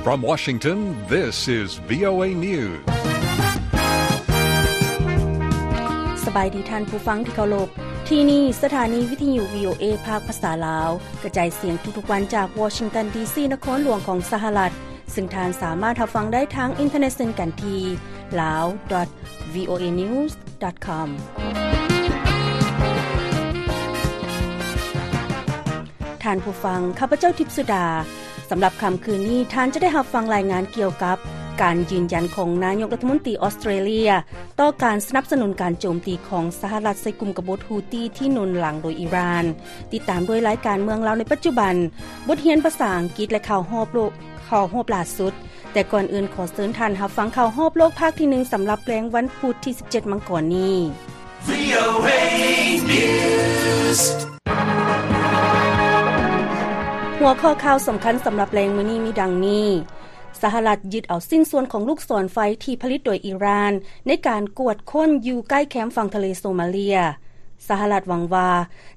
From Washington, this is VOA News. ສະບາຍດີທ່ານຜູ້ຟັງທີ່ເຄົາລົບ. ທີ່ນີ້ສະຖານີວິທະຍຸ VOA ພາກພາສາລາວ ກະຈາຍສຽງທຸກໆວັນຈາກວໍຊິງຕັນ ດີຊີ ນະຄອນຫຼວງຂອງສະຫະລັດ, ເຊິ່ງທ່ານສາມາດຮັບຟັງໄດ້ທາງອິນເຕີເນັດເຊັ່ນກັນທີ່ lawdotvoanews.com. ທ່ານຜູ້ຟັງ, ຂ້າພະເຈົ້າ ທິບສຸດາ. ສຳລັບຄ່ຳຄືນນີ້, ທ່ານຈະໄດ້ຮັບຟັງລາຍງານກ່ຽວກັບການຢືນຢັນຂອງນາຍົກລັດຖະມົນຕີອອສເຕຣເລຍ ຕໍ່ການສະໜັບສະໜູນການໂຈມຕີຂອງສະຫະລັດໃສ່ກຸ່ມກະບົດ Houthi ທີ່ໜູນຫຼັງໂດຍອີຣານ. ຕິດຕາມດ້ວຍລາຍການເມືອງລາວໃນປັດຈຸບັນ, ບົດຮຽນພາສາອັງກິດ ແລະ ຂ່າວຮອບໂລກ, ຂ່າວຮອບຫຼ້າສຸດ. ແຕ່ກ່ອນອື່ນ, ຂໍເຊີນທ່ານຮັບຟັງຂ່າວຮອບໂລກພາກທີໜຶ່ງ ສຳລັບແລງວັນພຸດທີສິບເຈັດ ມັງກອນນີ້. VOA News. ຫົວຂໍ້ຂ່າວສຳຄັນສຳລັບແລງມື້ນີ້ມີດັ່ງນີ້: ສະຫະລັດຍຶດເອົາຊິ້ນສ່ວນຂອງລູກສອນໄຟທີ່ຜະລິດໂດຍອີຣານ ໃນການກວດຄົ້ນຢູ່ໃກ້ແຄມຝັ່ງທະເລໂຊມາເລຍ. ສະຫະລັດຫວັງວ່າ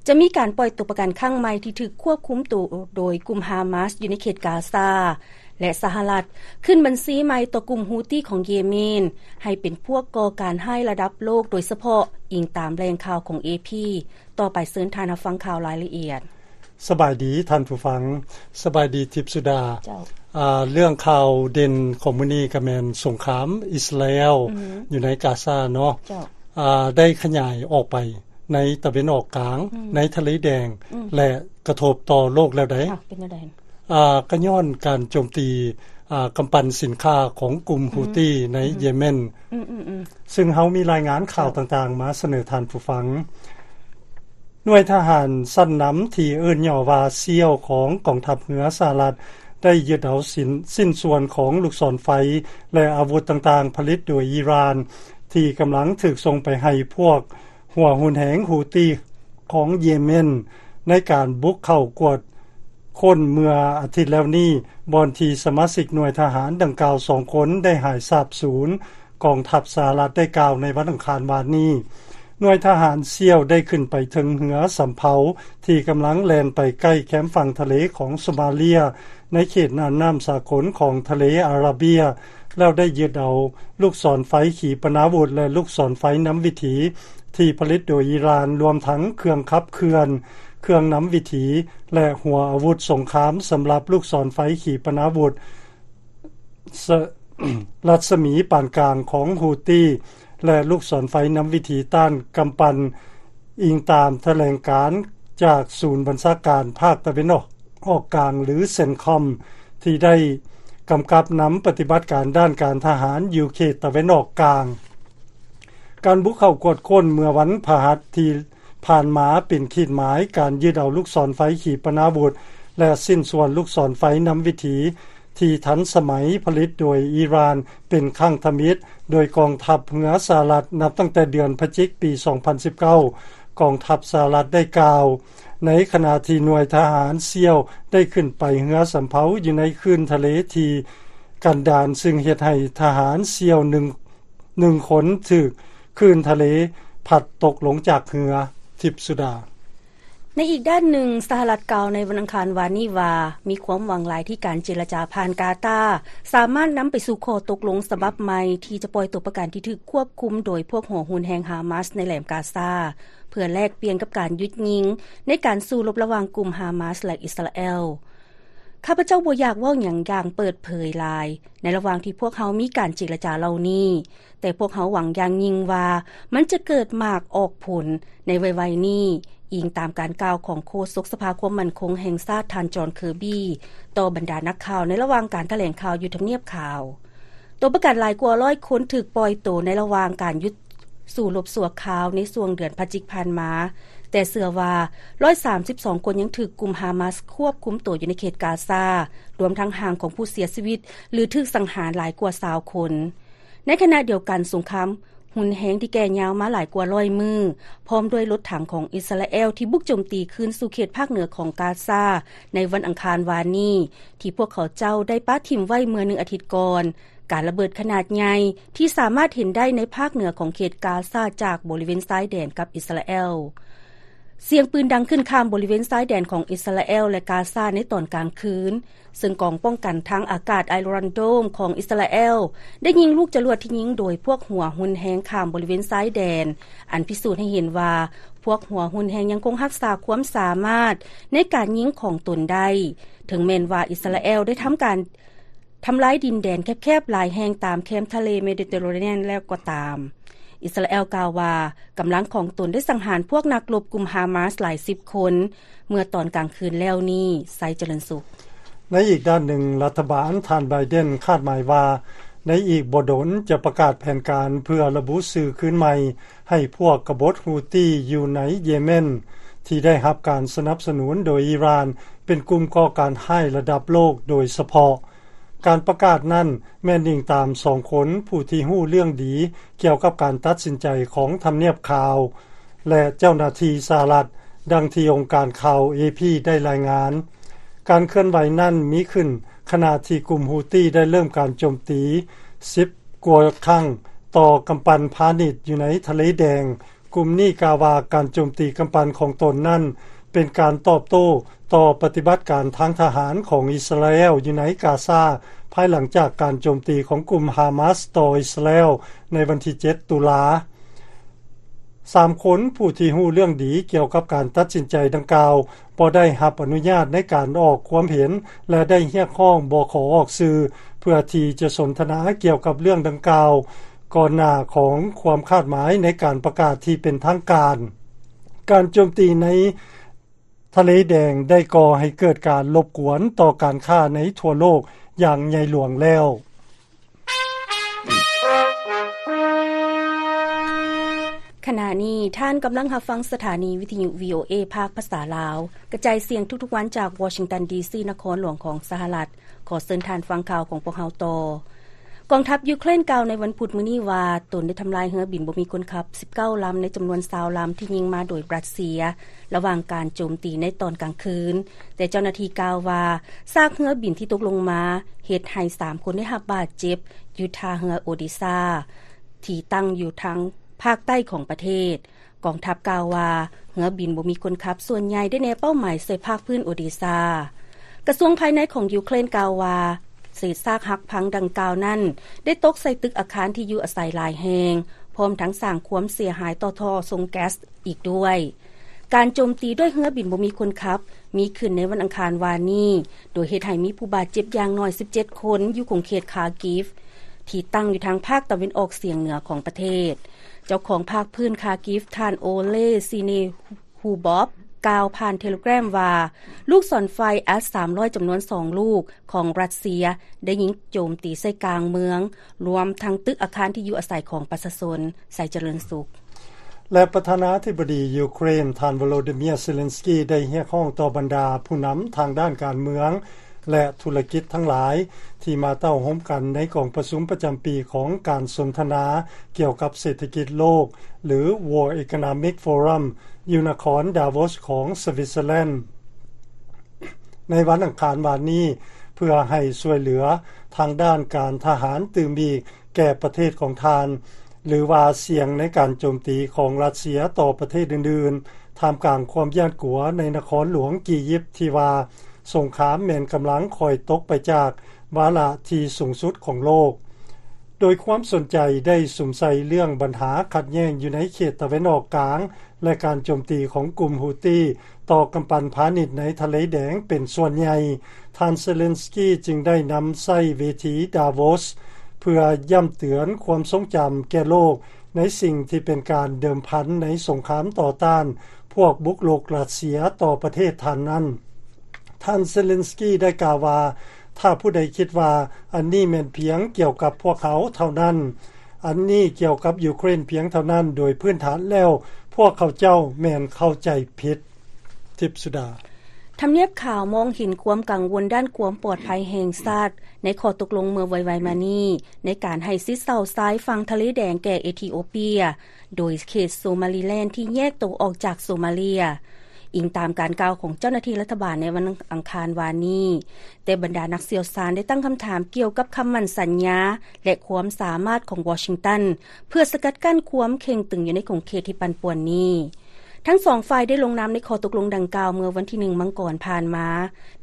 ຈະມີການປ່ອຍຕົວປະກັນຄັ້ງໃໝ່ທີ່ຖືກຄວບຄຸມໂຕໂດຍກຸ່ມຮາມາສຢູ່ໃນເຂດກາຊາ. ແລະ ສະຫະລັດຂຶ້ນບັນຊີໃໝ່ຕໍ່ກຸ່ມ Houthi ຂອງເຢເມນ ໃຫ້ເປັນພວກກໍ່ການຮ້າຍລະດັບໂລກ ໂດຍສະເພາະອີງຕາມແຫຼ່ງຂ່າວຂອງ AP. ຕໍ່ໄປເຊີນທ່ານຮັບຟັງຂ່າວລາຍລະອຽດ. ສະບາຍດີທ່ານຜູ້ຟັງ. ສະບາຍດີທິບສຸດາ. ເຈົ້າ. ອາ ເລື່ອງຂ່າວເດັ່ນຂອງມື້ນີ້ກໍແມ່ນສົງຄາມອິດສະຣາແອລ ອືຮຶ ຢູ່ໃນກາຊາເນາະ. ເຈົ້າ. ອາ ໄດ້ຂະຫຍາຍອອກໄປໃນຕາເວັນອອກກາງ, ອືມ ໃນທະເລແດງ ອືມ ແລະ ກະທົບຕໍ່ໂລກແລ້ວໃດ໋. ເປັນແນວໃດ? ອາ ກໍຍ້ອນການໂຈມຕີ ອາ ກຳປັ່ນສິນຄ້າຂອງກຸ່ມ ອືມ Houthi ໃນ ອືມ ເຢເມນ. ອືມໆໆ. ຊຶ່ງເຮົາມີລາຍງານຂ່າວ ເຈົ້າ ຕ່າງໆມາສະເໜີທ່ານຜູ້ຟັງ. ໜ່ວຍທະຫານຊັ້ນນຳທີ່ເອີ້ນຫຍໍ້ວ່າ SEAL ຂອງກອງທັບເຮືອສະຫະລັດ ໄດ້ຍຶດເອົາຊິ້ນ ຊິ້ນສ່ວນຂອງລູກສອນໄຟ ແລະ ອາວຸດຕ່າງໆຜະລິດໂດຍອີຣານ ທີ່ກຳລັງຖືກສົ່ງໄປໃຫ້ພວກຫົວຮຸນແຮງ Houthi ຂອງເຢເມນ ໃນການບຸກເຂົ້າກວດຄົ້ນເມື່ອອາທິດແລ້ວນີ້, ບ່ອນທີ່ສະມາຊິກໜ່ວຍທະຫານດັ່ງກ່າວສອງຄົນໄດ້ຫາຍສາບສູນ. ກອງທັບສະຫະລັດໄດ້ກ່າວໃນວັນອັງຄານວານນີ້. ໜ່ວຍທະຫານ SEAL ໄດ້ຂຶ້ນໄປເທິງເຮືອສຳເພົາທີ່ກຳລັງແລ່ນໄປໃກ້ແຄມຝັ່ງທະເລຂອງໂຊມາເລຍ ໃນເຂດນ່ານນ້ຳສາກົນຂອງທະເລອາຣາເບຍ ແລ້ວໄດ້ຍຶດເອົາລູກສອນໄຟຂີປະນາວຸດ ແລະ ລູກສອນໄຟນຳວິຖີທີ່ຜະລິດໂດຍອີຣານ, ລວມທັງເຄື່ອງຂັບເຄື່ອນ, ເຄື່ອງນຳວິຖີ ແລະ ຫົວອາວຸດສົງຄາມສຳລັບລູກສອນໄຟຂີປະນາວຸດ ສະ ລັດສະໝີປານກາງຂອງ Houthi ແລະ ລູກສອນໄຟນຳວິຖີຕ້ານກຳປັ່ນ, ອີງຕາມຖະແຫຼງການຈາກສູນບັນຊາການພາກຕາເວັນອອກ ອອກກາງ ຫຼື CENTCOM ທີ່ໄດ້ກຳກັບນຳປະຕິບັດການດ້ານການທະຫານຢູ່ເຂດຕາເວັນອອກກາງ. ການບຸກເຂົ້າກວດຄົ້ນເມື່ອວັນພະຫັດທີ່ຜ່ານມາເປັນຂີດໝາຍການຍຶດເອົາລູກສອນໄຟຂີປະນາວຸດ ແລະ ຊິ້ນສ່ວນລູກສອນໄຟນຳວິຖີ ທີ່ທັນສະໄໝຜະລິດໂດຍອີຣານເປັນຄັ້ງທຳອິດ ໂດຍກອງທັບເຮືອສະຫະລັດ ນັບຕັ້ງແຕ່ເດືອນພະຈິກ ປີສອງພັນສິບເກົ້າ ກອງທັບສະຫະລັດໄດ້ກ່າວ, ໃນຂະນະທີ່ໜ່ວຍທະຫານ SEAL ໄດ້ຂຶ້ນໄປເຮືອສຳເພົາຢູ່ໃນຄື້ນທະເລທີ່ກັນດານ, ຊຶ່ງເຮັດໃຫ້ທະຫານ SEAL ໜຶ່ງ ໜຶ່ງຄົນຖືກຄື້ນທະເລພັດຕົກລົງຈາກເຮືອ. ທິບສຸດາ. ໃນອີກດ້ານໜຶ່ງ, ສະຫະລັດກ່າວໃນວັນອັງຄານວານນີ້ວ່າ ມີຄວາມຫວັງຫຼາຍທີ່ການເຈລະຈາຜ່ານກາຕາ ສາມາດນຳໄປສູ່ຂໍ້ຕົກລົງສະບັບໃໝ່ ທີ່ຈະປ່ອຍຕົວປະກັນທີ່ຖືກຄວບຄຸມໂດຍພວກຫົວຮຸນແຮງຮາມາສໃນແຫຼມກາຊາ ເພື່ອແລກປ່ຽນກັບການຢຸດຍິງໃນການສູ້ລົບລະຫວ່າງກຸ່ມຮາມາສ ແລະ ອິດສະຣາແອລ. ຂ້າພະເຈົ້າບໍ່ຢາກເວົ້າຫຍັງຢ່າງເປີດເຜີຍຫຼາຍ ໃນລະຫວ່າງທີ່ພວກເຮົາມີການເຈລະຈາເຫຼົ່ານີ້, ແຕ່ພວກເຮົາຫວັງຢ່າງຍິ່ງວ່າມັນຈະເກີດໝາກອອກຜົນໃນໄວໆນີ້, ອີງຕາມການກ່າວຂອງໂຄສົກສະພາຄວາມໝັ້ນຄົງແຫ່ງຊາດ ທ່ານ ຈອນ ເຄີບີ ຕໍ່ບັນດານັກຂ່າວໃນລະຫວ່າງການຖະແຫຼງຂ່າວຢູ່ທຳນຽບຂາວ. ຕົວປະກັນຫຼາຍກວ່າຮ້ອຍຄົນຖືກປ່ອຍໂຕໃນລະຫວ່າງການຢຸດສູ້ລົບຊົ່ວຄາວໃນຊ່ວງເດືອນພະຈິກຜ່ານມາ, ແຕ່ເຊື່ອວ່າຮ້ອຍສາມສິບສອງຄົນຍັງຖືກກຸ່ມຮາມາສຄວບຄຸມໂຕຢູ່ໃນເຂດກາຊາ, ລວມທັງຮ່າງຂອງຜູ້ເສຍຊີວິດ ຫຼື ຖືກສັງຫານຫຼາຍກວ່າຊາວຄົນ. ໃນຂະນະດຽວກັນ, ສົງຄາມຮຸນແຮງທີ່ແກ່ຍາວມາຫຼາຍກວ່າຮ້ອຍມື້, ພ້ອມດ້ວຍລົດຖັງຂອງອິດສະຣາແອລທີ່ບຸກໂຈມຕີຄືນສູ່ເຂດພາກເໜືອຂອງກາຊາໃນວັນອັງຄານວານນີ້, ທີ່ພວກເຂົາເຈົ້າໄດ້ປະຖິ້ມໄວ້ເມື່ອໜຶ່ງອາທິດກ່ອນ, ການລະເບີດຂະໜາດໃຫຍ່ທີ່ສາມາດເຫັນໄດ້ໃນພາກເໜືອຂອງເຂດກາຊາຈາກບໍລິເວນຊາຍແດນກັບອິດສະຣາແອລ. ສຽງປືນດັງຂຶ້ນຂ້າມບໍລິເວນຊາຍແດນຂອງອິດສະຣາແອລ ແລະ ກາຊາໃນຕອນກາງຄືນ, ເຊິ່ງກອງປ້ອງກັນທາງອາກາດ Iron Dome ຂອງອິດສະຣາແອລ ໄດ້ຍິງລູກຈະຫຼວດທີ່ຍິງໂດຍພວກຫົວຮຸນແຮງຂ້າມບໍລິເວນຊາຍແດນ, ອັນພິສູດໃຫ້ເຫັນວ່າພວກຫົວຮຸນແຮງຍັງຄົງຮັກສາຄວາມສາມາດໃນການຍິງຂອງຕົນໄດ້, ເຖິງແມ່ນວ່າອິດສະຣາແອລໄດ້ທຳການ ທຳລາຍດິນແດນແຄບໆຫຼາຍແຫ່ງຕາມແຄມທະເລເມດິເຕເຣເນຍນແລ້ວກໍຕາມ. ອິດສະຣາແອລກ່າວວ່າ ກຳລັງຂອງຕົນໄດ້ສັງຫານພວກນັກລົບກຸ່ມຮາມາສຫຼາຍສິບຄົນ ເມື່ອຕອນກາງຄືນແລ້ວນີ້. ໄຊຈະເລີນສຸກ. ໃນອີກດ້ານໜຶ່ງ, ລັດຖະບານທ່ານໄບເດນຄາດໝາຍວ່າ ໃນອີກບໍ່ດົນຈະປະກາດແຜນການເພື່ອລະບຸຊື່ຄືນໃໝ່ໃຫ້ພວກກະບົດຮູ້ຕີຢູ່ໃນເຢເມັນ ທີ່ໄດ້ຮັບການສະໜັບສະໜູນໂດຍອີຣານ ເປັນກຸ່ມກໍ່ການຮ້າຍລະດັບໂລກໂດຍສະເພາະ. ການປະກາດນັ້ນແມ່ນອີງຕາມສອງຄົນຜູ້ທີ່ຮູ້ເລື່ອງດີກ່ຽວກັບການຕັດສິນໃຈຂອງທຳນຽບຂາວ ແລະ ເຈົ້າໜ້າທີ່ສະຫະລັດ, ດັ່ງທີ່ອົງການຂ່າວ ເອພີ ໄດ້ລາຍງານ. ການເຄື່ອນໄຫວນັ້ນມີຂຶ້ນຂະນະທີ່ກຸ່ມຮູ້ຕີໄດ້ເລີ່ມການໂຈມຕີສິບກວ່າຄັ້ງຕໍ່ກຳປັ່ນພານິດຢູ່ໃນທະເລແດງ. ກຸ່ມນີ້ກ່າວວ່າການໂຈມຕີກຳປັ່ນຂອງຕົນນັ້ນ ເປັນການຕອບໂຕ້ຕໍ່ປະຕິບັດການທາງທະຫານຂອງອິດສະຣາແອລຢູ່ໃນກາຊາ, ພາຍຫຼັງຈາກການໂຈມຕີຂອງກຸ່ມຮາມາສຕໍ່ອິດສະຣາແອລໃນວັນທີເຈັດ ຕຸລາ. ສາມຄົນຜູ້ທີ່ຮູ້ເລື່ອງດີກ່ຽວກັບການຕັດສິນໃຈດັ່ງກ່າວ ບໍ່ໄດ້ຮັບອະນຸຍາດໃນການອອກຄວາມເຫັນ ແລະ ໄດ້ຮຽກຮ້ອງບໍ່ຂໍອອກຊື່ ເພື່ອທີ່ຈະສົນທະນາກ່ຽວກັບເລື່ອງດັ່ງກ່າວ ກ່ອນໜ້າຂອງຄວາມຄາດໝາຍໃນການປະກາດທີ່ເປັນທາງການ. ການໂຈມຕີໃນທະເລແດງໄດ້ກໍ່ໃຫ້ເກີດການລົບກວນຕໍ່ການຄ້າໃນທົ່ວໂລກຢ່າງໃຫຍ່ຫຼວງແລ້ວ. ຂະນະນີ້ທ່ານກຳລັງຮັບຟັງສະຖານີວິທະຍຸ ວີໂອເອ ພາກພາສາລາວ, ກະຈາຍສຽງທຸກໆວັນຈາກວໍຊິງຕັນ ດີຊີ ນະຄອນຫຼວງຂອງສະຫະລັດ. ຂໍເຊີນທ່ານຟັງຂ່າວຂອງພວກເຮົາຕໍ່. ກອງທັບຢູເຄຣນກ່າວໃນວັນພຸດມື້ນີ້ວ່າ ຕົນໄດ້ທຳລາຍເຮືອບິນບໍ່ມີຄົນຂັບສິບເກົ້າລຳ ໃນຈຳນວນຊາວລຳທີ່ຍິງມາໂດຍຣັດເຊຍ ລະຫວ່າງການໂຈມຕີໃນຕອນກາງຄືນ, ແຕ່ເຈົ້າໜ້າທີ່ກ່າວວ່າ ຊາກເຮືອບິນທີ່ຕົກລົງມາເຮັດໃຫ້ສາມຄົນໄດ້ຮັບບາດເຈັບຢູ່ທ່າເຮືອໂອເດຊາ ທີ່ຕັ້ງຢູ່ທາງພາກໃຕ້ຂອງປະເທດ. ກອງທັບກ່າວວ່າ ເຮືອບິນບໍ່ມີຄົນຂັບສ່ວນໃຫຍ່ໄດ້ແນເປົ້າໝາຍໃສ່ພາກພື້ນໂອເດຊາ. ກະຊວງພາຍໃນຂອງຢູເຄຣນກ່າວວ່າ ເສດຊາກຫັກພັງດັ່ງກ່າວນັ້ນ ໄດ້ຕົກໃສ່ຕຶກອາຄານທີ່ຢູ່ອາໄສຫຼາຍແຫ່ງ, ພ້ອມທັງສ້າງຄວາມເສຍຫາຍຕໍ່ທໍ່ສົ່ງແກັສອີກດ້ວຍ. ການໂຈມຕີດ້ວຍເຮືອບິນບໍ່ມີຄົນຂັບ ມີຂຶ້ນໃນວັນອັງຄານວານນີ້, ໂດຍເຮັດໃຫ້ມີຜູ້ບາດເຈັບຢ່າງໜ້ອຍສິບເຈັດຄົນ ຢູ່ຂົງເຂດຄາກິຟ ທີ່ຕັ້ງຢູ່ທາງພາກຕາເວັນອອກສຽງເໜືອຂອງປະເທດ. ເຈົ້າຂອງພາກພື້ນຄາກິຟ ທ່ານໂອເລ ຊີເນຄູບອບ ກ່າວຜ່ານເທເລແກຣມວ່າ ລູກສອນໄຟ ເອສສາມຮ້ອຍ ຈຳນວນສອງລູກຂອງຣັດເຊຍ ໄດ້ຍິງໂຈມຕີໃສ່ກາງເມືອງ, ລວມທັງຕຶກອາຄານທີ່ຢູ່ອາໄສຂອງປະຊາຊົນ. ໄຊຈະເລີນສຸກ. ແລະ ປະທານາທິບໍດີຢູເຄຣນ ທ່ານ ໂວໂລດີເມຍ ເຊເລັນສກີ ໄດ້ຮຽກຮ້ອງຕໍ່ບັນດາຜູ້ນຳທາງດ້ານການເມືອງ ແລະ ທຸລະກິດທັງຫຼາຍ ທີ່ມາເຕົ້າໂຮມກັນໃນກອງປະຊຸມປະຈຳປີຂອງການສົນທະນາກ່ຽວກັບເສດຖະກິດໂລກ ຫຼື World Economic Forum ຢູ່ນະຄອນດາໂວສຂອງສະວິດເຊີແລນ ໃນວັນອັງຄານວານນີ້ ເພື່ອໃຫ້ຊ່ວຍເຫຼືອທາງດ້ານການທະຫານຕື່ມອີກແກ່ປະເທດຂອງທ່ານ ຫຼືວ່າສ່ຽງໃນການໂຈມຕີຂອງຣັດເຊຍຕໍ່ປະເທດອື່ນໆ ທ່າມກາງຄວາມຢ້ານກົວໃນນະຄອນຫຼວງກີຢິບ ທີ່ວ່າສົງຄາມແມ່ນກຳລັງຄ່ອຍຕົກໄປຈາກວາລະທີ່ສູງສຸດຂອງໂລກ. ໂດຍຄວາມສົນໃຈໄດ້ສຸມໃສ່ເລື່ອງບັນຫາຂັດແຍ່ງຢູ່ໃນເຂດຕາເວັນອອກກາງ ແລະ ການໂຈມຕີຂອງກຸ່ມຮູ້ຕີຕໍ່ກຳປັ່ນພານິດໃນທະເລແດງເປັນສ່ວນໃຫຍ່, ທ່ານເຊເລັນສກີຈຶ່ງໄດ້ນຳໃຊ້ເວທີດາໂວສ ເພື່ອຢ້ຳເຕືອນຄວາມຊົງຈຳແກ່ໂລກ ໃນສິ່ງທີ່ເປັນການເດີມພັນໃນສົງຄາມຕໍ່ຕ້ານພວກບຸກລຸກຣັດເຊຍຕໍ່ປະເທດທ່ານນັ້ນ. ທ່ານເຊເລັນສກີໄດ້ກ່າວວ່າ ຖ້າຜູ້ໃດຄິດວ່າອັນນີ້ແມ່ນພຽງກ່ຽວກັບພວກເຮົາເທົ່ານັ້ນ, ອັນນີ້ກ່ຽວກັບຢູເຄຣນພຽງເທົ່ານັ້ນ, ໂດຍພື້ນຖານແລ້ວພວກເຂົາເຈົ້າແມ່ນເຂົ້າໃຈຜິດ. ທິບສຸດາ. ທຳນຽບຂາວມອງເຫັນຄວາມກັງວົນດ້ານຄວາມປອດໄພແຫ່ງຊາດ ໃນຂໍ້ຕົກລົງເມື່ອໄວໆມານີ້ ໃນການໃຫ້ຊິດເຊົາຊາຍຝັ່ງທະເລແດງແກ່ເອທິໂອເປຍ ໂດຍເຂດໂຊມາລີແລນທີ່ແຍກໂຕອອກຈາກໂຊມາເລຍ, ອີງຕາມການກ່າວຂອງເຈົ້າໜ້າທີ່ລັດຖະບານໃນວັນອັງຄານວານນີ້. ແຕ່ບັນດານັກຊ່ຽວຊານໄດ້ຕັ້ງຄຳຖາມກ່ຽວກັບຄຳໝັ້ນສັນຍາ ແລະ ຄວາມສາມາດຂອງວໍຊິງຕັນ ເພື່ອສະກັດກັ້ນຄວາມເຄັ່ງຕຶງຢູ່ໃນຂົງເຂດທີ່ປັ່ນປ່ວນນີ້. ທັງສອງຝ່າຍໄດ້ລົງນາມໃນຂໍ້ຕົກລົງດັ່ງກ່າວເມື່ອວັນທີໜຶ່ງມັງກອນຜ່ານມາ.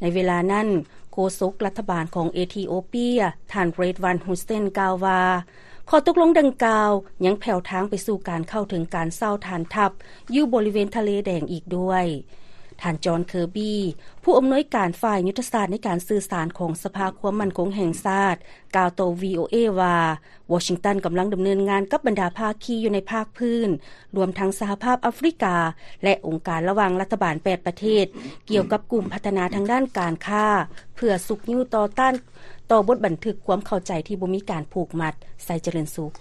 ໃນເວລານັ້ນ, ໂຄສົກລັດຖະບານຂອງເອທິໂອເປຍ ທ່ານ ເຣດວັນ ຮຸດເຊນ ກ່າວວ່າ ຂໍ້ຕົກລົງດັ່ງກ່າວຍັງແຜ່ວທາງໄປສູ່ການເຂົ້າເຖິງການເຊົ່າຖານທັບຢູ່ບໍລິເວນທະເລແດງອີກດ້ວຍ. ທ່ານ ຈອນ ເຄີບີ ຜູ້ອຳນວຍການຝ່າຍຍຸດທະສາດໃນການສື່ສານຂອງສະພາຄວາມໝັ້ນຄົງແຫ່ງຊາດ ກ່າວຕໍ່ ວີໂອເອ ວ່າ ວໍຊິງຕັນກຳລັງດຳເນີນງານກັບບັນດາພາຄີຢູ່ໃນພາກພື້ນ, ລວມທັງສະຫະພາບອາຟຣິກາ ແລະ ອົງການລະຫວ່າງລັດຖະບານແປດປະເທດ ກ່ຽວກັບກຸ່ມພັດທະນາທາງດ້ານການຄ້າ ເພື່ອຊຸກຍູ້ຕໍ່ຕ້ານຕໍ່ບົດບັນທຶກຄວາມເຂົ້າໃຈທີ່ບໍ່ມີການຜູກມັດ. ໄຊຈະເລີນສຸກ.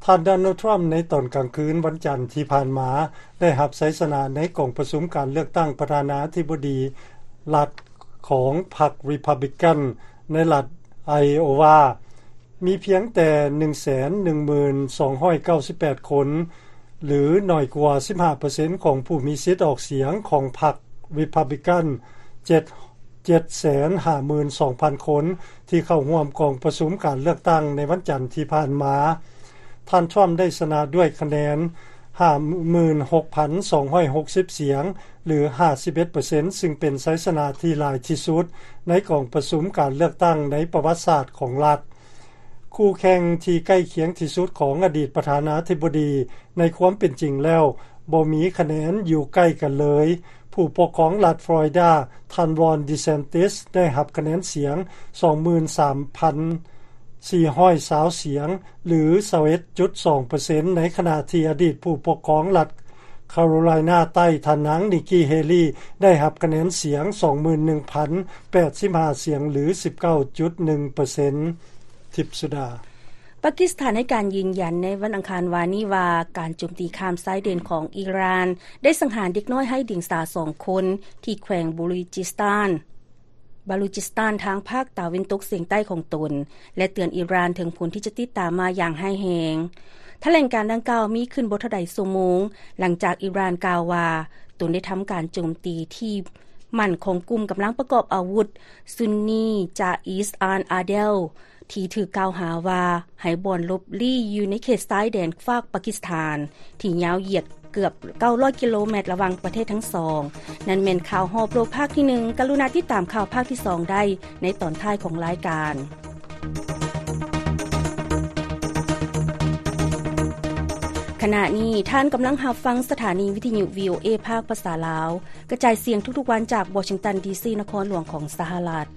ທ່ານ ໂດນັລ ທຣຳ ໃນຕອນກາງຄືນວັນຈັນທີ່ຜ່ານມາ ໄດ້ຮັບໄຊຊະນະໃນກອງປະຊຸມການເລືອກຕັ້ງປະທານາທິບໍດີລັດຂອງພັກ Republican ໃນລັດ Iowa ມີພຽງແຕ່ ໜຶ່ງແສນໜຶ່ງໝື່ນສອງຮ້ອຍເກົ້າສິບແປດຄົນ ຫຼື ໜ້ອຍກວ່າ ສິບຫ້າເປີເຊັນ ຂອງຜູ້ມີສິດອອກສຽງຂອງພັກ Republican ເຈັດ ເຈັດແສນຫ້າໝື່ນສອງພັນຄົນ ທີ່ເຂົ້າຮ່ວມກອງປະຊຸມການເລືອກຕັ້ງໃນວັນຈັນທີ່ຜ່ານມາ. ທ່ານ ທຣຳ ໄດ້ຊະນະດ້ວຍຄະແນນ ຫ້າໝື່ນຫົກພັນສອງຮ້ອຍຫົກສິບສຽງ ຫຼື ຫ້າສິບເອັດເປີເຊັນ ຊຶ່ງເປັນໄຊຊະນະທີ່ຫຼາຍທີ່ສຸດໃນກອງປະຊຸມການເລືອກຕັ້ງໃນປະຫວັດສາດຂອງລັດ. ຄູ່ແຂ່ງທີ່ໃກ້ຄຽງທີ່ສຸດຂອງອະດີດປະທານາທິບໍດີ ໃນຄວາມເປັນຈິງແລ້ວບໍ່ມີຄະແນນຢູ່ໃກ້ກັນເລີຍ. ຜູ້ປົກຄອງລັດຟລໍຣິດາ ທ່ານ ຣອນ ດີແຊນຕິສ ໄດ້ຮັບຄະແນນສຽງ ສອງໝື່ນສາມພັນສີ່ຮ້ອຍຊາວສຽງ ຫຼື ຊາວເອັດຈຸດສອງເປີເຊັນ ໃນຂະນະທີ່ອະດີດຜູ້ປົກຄອງລັດຄາໂຣໄລນາໃຕ້ ທ່ານນາງ ນິກກີ່ ເຮລີ ໄດ້ຮັບຄະແນນສຽງ ສອງໝື່ນໜຶ່ງພັນແປດສິບຫ້າສຽງ ຫຼື ສິບເກົ້າຈຸດໜຶ່ງເປີເຊັນ. ທິບສຸດາ. ປາກິສຖານໃຫ້ການຢືນຢັນໃນວັນອັງຄານວານນີ້ວ່າ ການໂຈມຕີຂ້າມຊາຍແດນຂອງອີຣານ ໄດ້ສັງຫານເດັກນ້ອຍໄຮ້ດຽງສາສອງຄົນ ທີ່ແຂວງບາລູຈິສຕານ ບາລູຈິສຕານ ທາງພາກຕາເວັນຕົກສຽງໃຕ້ຂອງຕົນ ແລະ ເຕືອນອີຣານເຖິງຜົນທີ່ຈະຕິດຕາມມາຢ່າງຮ້າຍແຮງ. ຖະແຫຼງການດັ່ງກ່າວມີຂຶ້ນບໍ່ເທົ່າໃດຊົ່ວໂມງ ຫຼັງຈາກອີຣານກ່າວວ່າ ຕົນໄດ້ທຳການໂຈມຕີທີ່ໝັ້ນຂອງກຸ່ມກຳລັງປະກອບອາວຸດ ຊຸນນີ ຈາອິສອານອາເດລ ທີ່ຖືກກ່າວຫາວ່າໃຫ້ບ່ອນຫຼົບລີ້ຢູ່ໃນເຂດຊາຍແດນຟາກປາກິສຖານ ທີ່ຍາວຢຽດເກືອບເກົ້າຮ້ອຍກິໂລແມັດລະຫວ່າງປະເທດທັງສອງ. ນັ້ນແມ່ນຂ່າວຮອບໂລກພາກທີໜຶ່ງ. ກະລຸນາຕິດຕາມຂ່າວພາກທີສອງໄດ້ໃນຕອນທ້າຍຂອງລາຍການ. ຂະນະນີ້ທ່ານກຳລັງຮັບຟັງສະຖານີວິທະຍຸ ວີໂອເອ ພາກພາສາລາວ ກະຈາຍສຽງທຸກໆວັນຈາກວໍຊິງຕັນ ດີຊີ ນະຄອນຫຼວງຂອງສະຫະລັດ.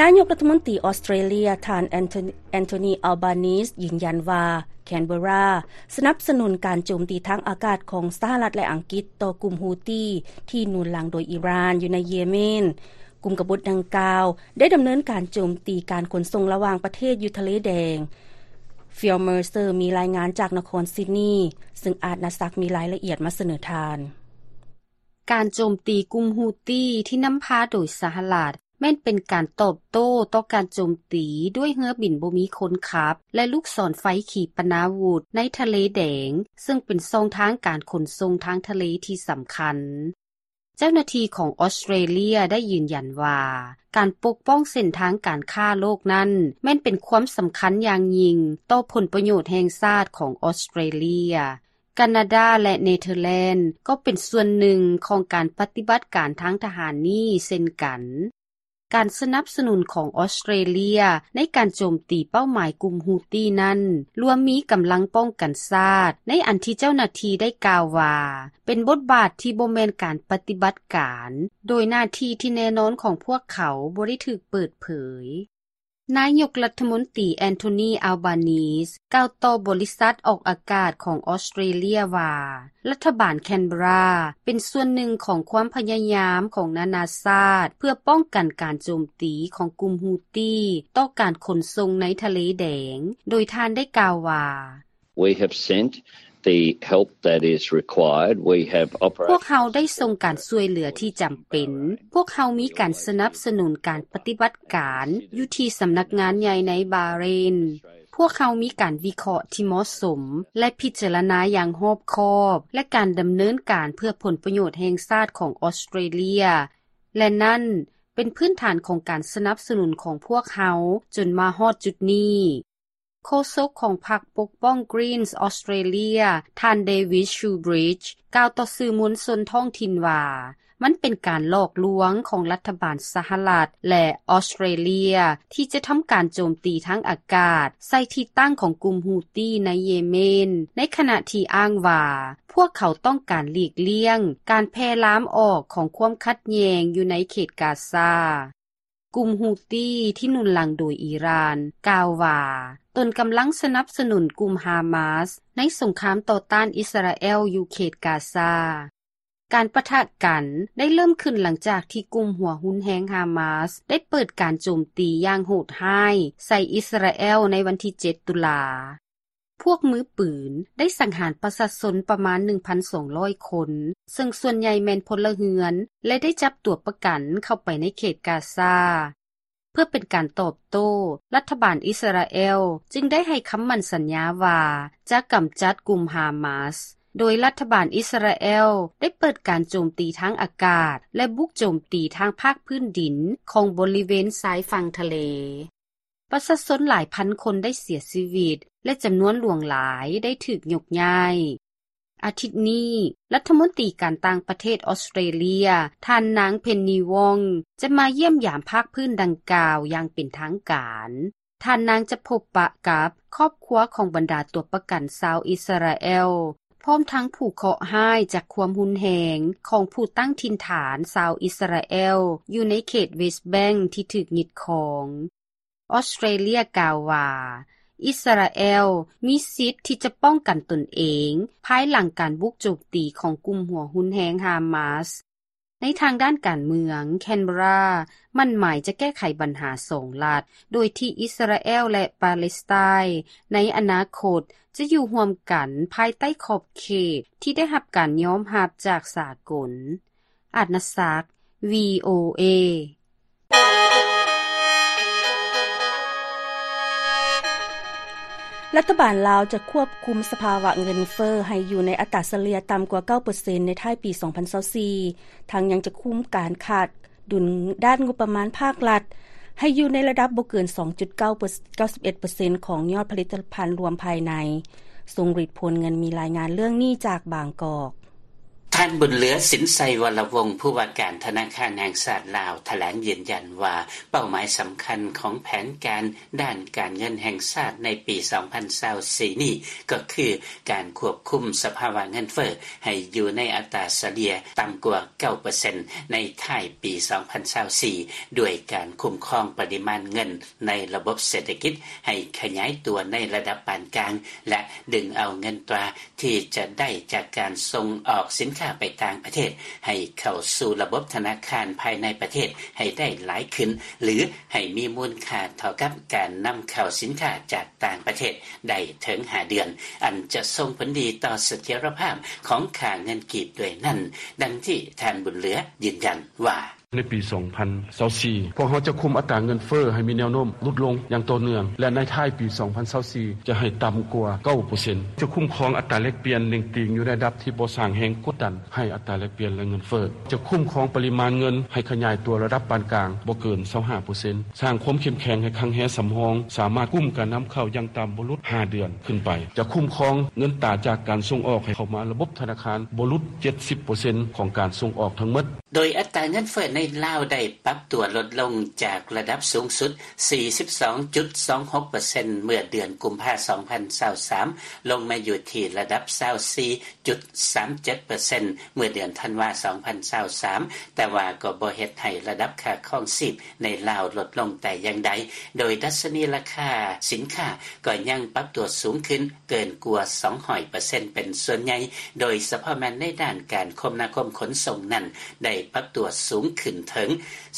ນາຍົກລັດຖະມົນຕີອອສເຕຣເລຍ ທ່ານ ແອນໂທ ແອນໂທນີ ອາລບານີສ ຢືນຢັນວ່າ ແຄນເບີຣາ ສະໜັບສະໜູນການໂຈມຕີທາງອາກາດຂອງສະຫະລັດ ແລະ ອັງກິດຕໍ່ກຸ່ມຮູ້ຕີ ທີ່ໜູນຫຼັງໂດຍອີຣານ ຢູ່ໃນເຢເມນ. ກຸ່ມກະບົດດັ່ງກ່າວໄດ້ດຳເນີນການໂຈມຕີການຂົນສົ່ງລະຫວ່າງປະເທດຢູ່ທະເລແດງ. ຟິລ ເມີເຊີ ມີລາຍງານຈາກນະຄອນຊິດນີ ເຊິ່ງອາດນາສັກມີລາຍລະອຽດມາສະເໜີທ່ານ. ການໂຈມຕີກຸ່ມຮູ້ຕີທີ່ນຳພາໂດຍສະຫະລັດ ແມ່ນເປັນການຕອບໂຕ້ຕໍ່ການໂຈມຕີດ້ວຍເຮືອບິນບໍ່ມີຄົນຂັບ ແລະ ລູກສອນໄຟຂີປະນາວຸດໃນທະເລແດງ, ເຊິ່ງເປັນຊ່ອງທາງການຂົນສົ່ງທາງທະເລທີ່ສຳຄັນ. ເຈົ້າໜ້າທີ່ຂອງອອສເຕຣເລຍໄດ້ຢືນຢັນວ່າ ການປົກປ້ອງເສັ້ນທາງການຄ້າໂລກນັ້ນ ແມ່ນເປັນຄວາມສຳຄັນຢ່າງຍິ່ງຕໍ່ຜົນປະໂຫຍດແຫ່ງຊາດຂອງອອສເຕຣເລຍ. ການາດາ ແລະ ເນເທີແລນ ກໍເປັນສ່ວນໜຶ່ງຂອງການປະຕິບັດການທາງທະຫານນີ້ເຊັ່ນກັນ. ການສະໜັບສະໜູນຂອງອອສເຕຣເລຍໃນການໂຈມຕີເປົ້າໝາຍກຸ່ມຮູ້ຕີນັ້ນ ລວມມີກຳລັງປ້ອງກັນຊາດ, ໃນອັນທີ່ເຈົ້າໜ້າທີ່ໄດ້ກ່າວວ່າ ເປັນບົດບາດທີ່ບໍ່ແມ່ນການປະຕິບັດການ, ໂດຍໜ້າທີ່ທີ່ແນ່ນອນຂອງພວກເຂົາບໍ່ໄດ້ຖືກເປີດເຜີຍ. ນາຍົກລັດຖະມົນຕີ ແອນໂທນີ ອາລບານີສ ກ່າວຕໍ່ບໍລິສັດອອກອາກາດຂອງອອສເຕຣເລຍວ່າ ລັດຖະບານແຄນເບີຣາເປັນສ່ວນໜຶ່ງຂອງຄວາມພະຍາຍາມຂອງນານາຊາດ ເພື່ອປ້ອງກັນການໂຈມຕີຂອງກຸ່ມຮູ້ຕີຕໍ່ການຂົນສົ່ງໃນທະເລແດງ, ໂດຍທ່ານໄດ້ກ່າວວ່າ We have sent the help that is required. We have operated ພວກເຮົາໄດ້ສົ່ງການຊ່ວຍເຫຼືອທີ່ຈຳເປັນ. ພວກເຮົາມີການສະໜັບສະໜູນການປະຕິບັດການຢູ່ທີ່ສຳນັກງານໃຫຍ່ໃນບາເຣນ. ພວກເຮົາມີການວິເຄາະທີ່ເໝາະສົມ ແລະ ພິຈາລະນາຢ່າງຮອບຄອບ ແລະ ການດຳເນີນການເພື່ອຜົນປະໂຫຍດແຫ່ງຊາດຂອງອອສເຕຣເລຍ ແລະ ນັ້ນເປັນພື້ນຖານຂອງການສະໜັບສະໜູນຂອງພວກເຮົາຈົນມາຮອດຈຸດນີ້. ໂຄສົກຂອງພັກປົກປ້ອງ Greens Australia ທ່ານ David Shoebridge ກ່າວຕໍ່ສື່ມວນຊົນທ້ອງຖິ່ນວ່າ ມັນເປັນການຫຼອກລວງຂອງລັດຖະບານສະຫະລັດ ແລະ ອອສເຕຣເລັຽ ທີ່ຈະທຳການໂຈມຕີທາງອາກາດໃສ່ທີ່ຕັ້ງຂອງກຸ່ມ Houthi ໃນເຢເມນ, ໃນຂະນະທີ່ອ້າງວ່າ ພວກເຂົາຕ້ອງການຫຼີກລ່ຽງການແຜ່ລາມອອກຂອງຄວາມຂັດແຍ່ງຢູ່ໃນເຂດກາຊາ. ກຸ່ມ Houthi ທີ່ໜູນຫຼັງໂດຍອີຣານ ກ່າວວ່າ ຕົນກຳລັງສະໜັບສະໜູນກຸ່ມ Hamas ໃນສົງຄາມຕໍ່ຕ້ານອິດສະຣາແອລຢູ່ເຂດກາຊາ. ການປະທະກັນໄດ້ເລີ່ມຂຶ້ນຫຼັງຈາກທີ່ກຸ່ມຫົວຮຸນແຮງ Hamas ໄດ້ເປີດການໂຈມຕີຢ່າງໂຫດຮ້າຍໃສ່ອິດສະຣາແອລໃນວັນທີເຈັດ ຕຸລາ. ພວກມືປືນໄດ້ສັງຫານປະຊາຊົນປະມານ ໜຶ່ງພັນສອງຮ້ອຍຄົນ, ເຊິ່ງສ່ວນໃຫຍ່ແມ່ນພົນລະເຮືອນ ແລະ ໄດ້ຈັບຕົວປະກັນເຂົ້າໄປໃນເຂດກາຊາ. ເພື່ອເປັນການຕອບໂຕ້, ລັດຖະບານອິດສະຣາແອລຈຶ່ງໄດ້ໃຫ້ຄຳໝັ້ນສັນຍາວ່າຈະກຳຈັດກຸ່ມ Hamas, ໂດຍລັດຖະບານອິດສະຣາແອລໄດ້ເປີດການໂຈມຕີທາງອາກາດ ແລະ ບຸກໂຈມຕີທາງພາກພື້ນດິນຂອງບໍລິເວນຊາຍຝັ່ງທະເລ. ປະຊາຊົນຫຼາຍພັນຄົນໄດ້ເສຍຊີວິດ ແລະ ຈຳນວນຫຼວງຫຼາຍໄດ້ຖືກຍົກຍ້າຍ. ອາທິດນີ້, ລັດຖະມົນຕີການຕ່າງປະເທດອອສເຕຣເລັຽ ທ່ານນາງ Penny Wong ຈະມາຢ້ຽມຢາມພາກພື້ນດັ່ງກ່າວຢ່າງເປັນທາງການ. ທ່ານນາງຈະພົບປະກັບຄອບຄົວຂອງບັນດາຕົວປະກັນຊາວອິດສະຣາແອລ, ພ້ອມທັງຜູ້ເຄາະຮ້າຍຈາກຄວາມຮຸນແຮງຂອງຜູ້ຕັ້ງຖິ່ນຖານຊາວອິດສະຣາແອລຢູ່ໃນເຂດ West Bank ທີ່ຖືກຍຶດຄອງ. ອອສເຕຣເລັຽກ່າວວ່າ ອິດສະຣາແອລມີສິດທີ່ຈະປ້ອງກັນຕົນເອງພາຍຫຼັງການບຸກໂຈມຕີຂອງກຸ່ມຫົວຮຸນແຮງ Hamas. ໃນທາງດ້ານການເມືອງ, ແຄນເບຣາໝັ້ນໝາຍຈະແກ້ໄຂບັນຫາສອງລັດ, ໂດຍທີ່ອິດສະຣາແອລ ແລະ ປາເລສໄຕໃນອະນາຄົດ ຈະຢູ່ຮ່ວມກັນພາຍໃຕ້ຂອບເຂດທີ່ໄດ້ຮັບການຍອມຮັບຈາກສາກົນ. ອາດນະສັກ VOA. ລັດຖະບານລາວຈະຄວບຄຸມສະພາວະເງິນເຟີ້ໃຫ້ຢູ່ໃນອັດຕາສະເລ່ຍຕ່ຳກວ່າເກົ້າເປີເຊັນໃນທ້າຍປີສອງພັນຊາວສີ່, ທັງຍັງຈະຄຸມການຂາດດຸນດ້ານງົບປະມານພາກລັດໃຫ້ຢູ່ໃນລະດັບບໍ່ເກີນສອງຈຸດເກົ້າ ເກົ້າສິບເອັດເປີເຊັນຂອງຍອດຜະລິດຕະພັນລວມພາຍໃນ. ຊົງລິດ ໂພນເງິນ ມີລາຍງານເລື່ອງນີ້ຈາກບາງກອກ. ທ່ານ ບຸນເຫຼືອ ສິນໄຊວໍລະວົງ ຜູ້ວ່າການທະນາຄານແຫ່ງຊາດລາວ ຖະແຫຼງຢືນຢັນວ່າ ເປົ້າໝາຍສຳຄັນຂອງແຜນການດ້ານການເງິນແຫ່ງຊາດໃນປີສອງພັນຊາວສີ່ນີ້ ກໍຄືການຄວບຄຸມສະພາວະເງິນເຟີ້ໃຫ້ຢູ່ໃນອັດຕາສະເລ່ຍຕ່ຳກວ່າເກົ້າເປີເຊັນໃນທ້າຍປີສອງພັນຊາວສີ່ ດ້ວຍການຄຸ້ມຄອງປະລິມານເງິນໃນລະບົບເສດຖະກິດໃຫ້ຂະຫຍາຍຕົວໃນລະດັບປານກາງ ແລະ ດຶງເອົາເງິນຕາ ທີ່ຈະໄດ້ຈາກການສົ່ງອອກສິນຄ້າໄປຕ່າງປະເທດ ໃຫ້ເຂົ້າສູ່ລະບົບທະນາຄານພາຍໃນປະເທດໃຫ້ໄດ້ຫຼາຍຂຶ້ນ ຫຼື ໃຫ້ມີມູນຄ່າເທົ່າກັບການນຳເຂົ້າສິນຄ້າຈາກຕ່າງປະເທດໄດ້ເຖິງຫ້າເດືອນ, ອັນຈະສົ່ງຜົນດີຕໍ່ສະຖຽນລະພາບຂອງຄ່າເງິນກີບດ້ວຍນັ້ນ, ດັ່ງທີ່ທ່ານ ບຸນເຫຼືອ ຢືນຢັນວ່າ. ໃນປີສອງພັນຊາວສີ່ ພວກເຮົາຈະຄຸມອັດຕາເງິນເຟີ້ໃຫ້ມີແນວໂນ້ມຫຼຸດລົງຢ່າງຕໍ່ເນື່ອງ ແລະ ໃນທ້າຍປີສອງພັນຊາວສີ່ ຈະໃຫ້ຕ່ຳກວ່າເກົ້າເປີເຊັນ. ຈະຄຸ້ມຄອງອັດຕາແລກປ່ຽນເໜັງຕີງຢູ່ໃນລະດັບທີ່ບໍ່ສ້າງແຮງກົດດັນໃຫ້ອັດຕາແລກປ່ຽນ ແລະ ເງິນເຟີ້. ຈະຄຸ້ມຄອງປະລິມານເງິນໃຫ້ຂະຫຍາຍຕົວລະດັບປານກາງບໍ່ເກີນຊາວຫ້າເປີເຊັນ. ສ້າງຄວາມເຂັ້ມແຂງໃຫ້ຄັງແຮສຳຮອງ ສາມາດກຸ້ມການນຳເຂົ້າຢ່າງຕ່ຳບໍ່ຫຼຸດຫ້າເດືອນຂຶ້ນໄປ. ຈະຄຸ້ມຄອງເງິນຕາຈາກການສົ່ງອອກໃຫ້ເຂົ້າມາລະບົບທະນາຄານບໍ່ຫຼຸດເຈັດສິບເປີເຊັນຂອງການສົ່ງອອກທັງໝົດ. ໂດຍອັດຕາເງິນເຟີ້ໃນລາວໄດ້ປັບຕົວລົດລົງຈາກລະດັບສູງສຸດ ສີ່ສິບສອງຈຸດສອງຫົກເປີເຊັນ ເມື່ອເດືອນກຸມພາ ສອງພັນຊາວສາມ ລົງມາຢູ່ທີ່ລະດັບ ຊາວສີ່ຈຸດສາມເຈັດເປີເຊັນ ເມື່ອເດືອນທັນວາ ສອງພັນຊາວສາມ ແຕ່ວ່າກໍບໍ່ເຮັດໃຫ້ລະດັບຄ່າຄອງຊີບໃນລາວລົດລົງແຕ່ຢ່າງໃດ, ໂດຍດັດຊະນີລາຄາສິນຄ້າກໍຍັງປັບຕົວສູງຂຶ້ນ ເກີນກວ່າສອງຮ້ອຍເປີເຊັນເປັນສ່ວນໃຫຍ່, ໂດຍສະເພາະແມ່ນໃນດ້ານການຄົມນາຄົມຂົນສົ່ງນັ້ນ ໄດ້ປັບຕົວສູງຂຶ້ນເຖິງ